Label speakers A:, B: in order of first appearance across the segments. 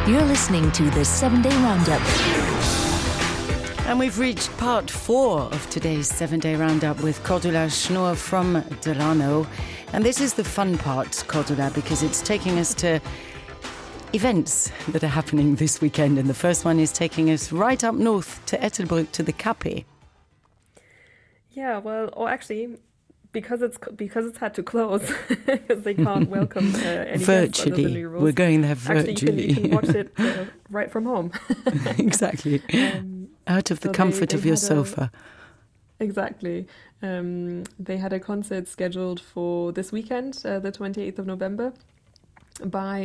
A: You're listening to the 7-Day Roundup.
B: And we've reached part 4 of today's 7-Day Roundup with Cordula Schnur from Delano. And this is the fun part, Cordula, because it's taking us to events that are happening this weekend. And the first one is taking us right up north to Ettelbruck to the Cape.
C: Yeah, well, or actually, because it's had to close because they can't welcome any guests under the new rules.
B: We're going there virtually.
C: Actually, you can watch it right from home.
B: Exactly. Out of the comfort of your sofa.
C: Exactly. They had a concert scheduled for this weekend, the 28th of November, by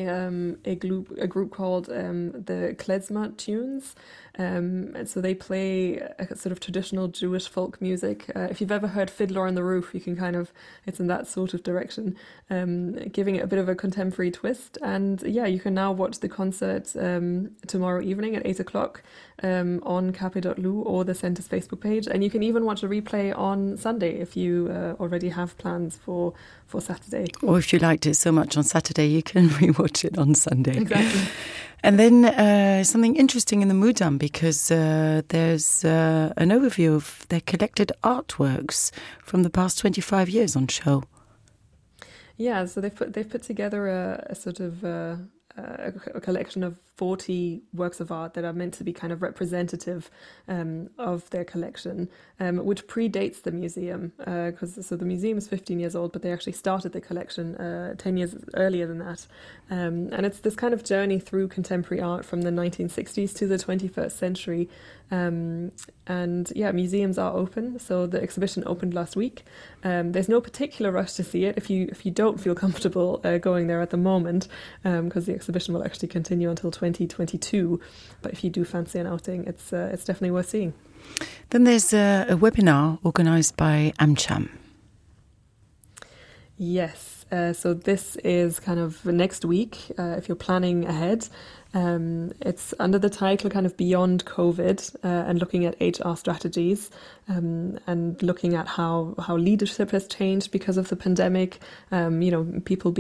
C: a group called the Klezmer Tunes. And so they play a sort of traditional Jewish folk music. If you've ever heard Fiddler on the Roof, you can it's in that sort of direction, giving it a bit of a contemporary twist. And yeah, you can now watch the concert tomorrow evening at 8 o'clock on cape.lu or the Centre's Facebook page. And you can even watch a replay on Sunday if you already have plans for Saturday.
B: Or if you liked it so much on Saturday, you can rewatch it on Sunday.
C: Exactly.
B: And then something interesting in the Mudam, because there's an overview of their collected artworks from the past 25 years on show.
C: Yeah, so they've put together a sort of a collection of 40 works of art that are meant to be kind of representative of their collection, which predates the museum, because the museum is 15 years old, but they actually started the collection 10 years earlier than that. And it's this kind of journey through contemporary art from the 1960s to the 21st century. And yeah, museums are open. So the exhibition opened last week. There's no particular rush to see it if you don't feel comfortable going there at the moment, because the exhibition will actually continue until 2022. But if you do fancy an outing, it's definitely worth seeing.
B: Then there's a webinar organised by AmCham.
C: Yes. So this is kind of next week, if you're planning ahead. It's under the title kind of Beyond COVID, and looking at HR strategies, and looking at how leadership has changed because of the pandemic. People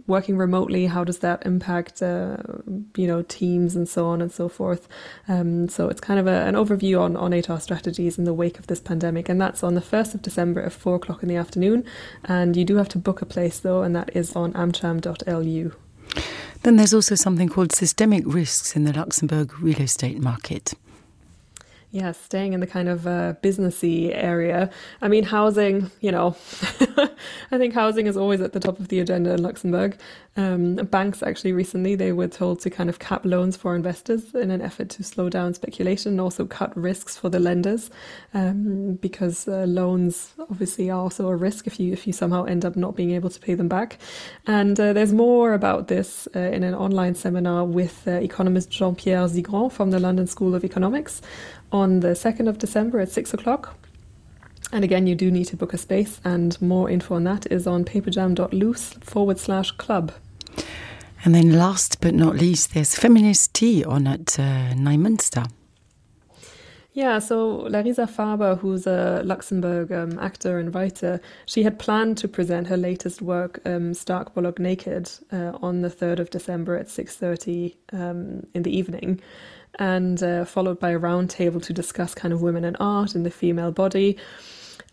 C: working remotely, how does that impact teams and so on and so forth. So it's kind of an overview on HR strategies in the wake of this pandemic, and that's on the 1st of December at 4 o'clock in the afternoon. And you do have to book a place though, and that is on amcham.lu.
B: Then there's also something called systemic risks in the Luxembourg real estate market.
C: Yeah, staying in the kind of businessy area. I mean, housing, I think housing is always at the top of the agenda in Luxembourg. Banks actually recently, they were told to kind of cap loans for investors in an effort to slow down speculation and also cut risks for the lenders, because loans obviously are also a risk if you somehow end up not being able to pay them back. And there's more about this in an online seminar with economist Jean-Pierre Zigran from the London School of Economics on the 2nd of December at 6 o'clock. And again, you do need to book a space, and more info on that is on paperjam.lu/club.
B: And then last but not least, there's feminist tea on at Neumünster.
C: Yeah, so Larisa Faber, who's a Luxembourg actor and writer, she had planned to present her latest work, Stark Bollock Naked, on the 3rd of December at 6:30 in the evening, and followed by a roundtable to discuss kind of women in art and the female body.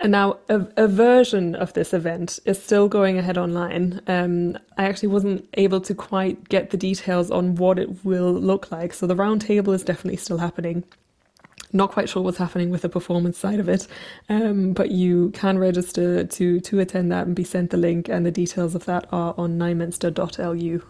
C: And now a version of this event is still going ahead online. I actually wasn't able to quite get the details on what it will look like. So the roundtable is definitely still happening. Not quite sure what's happening with the performance side of it, but you can register to attend that and be sent the link, and the details of that are on neumünster.lu.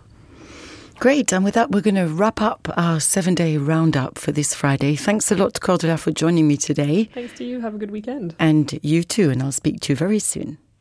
B: Great, and with that we're going to wrap up our 7-Day Roundup for this Friday. Thanks a lot, Cordula, for joining me today.
C: Thanks to you, have a good weekend.
B: And you too, and I'll speak to you very soon.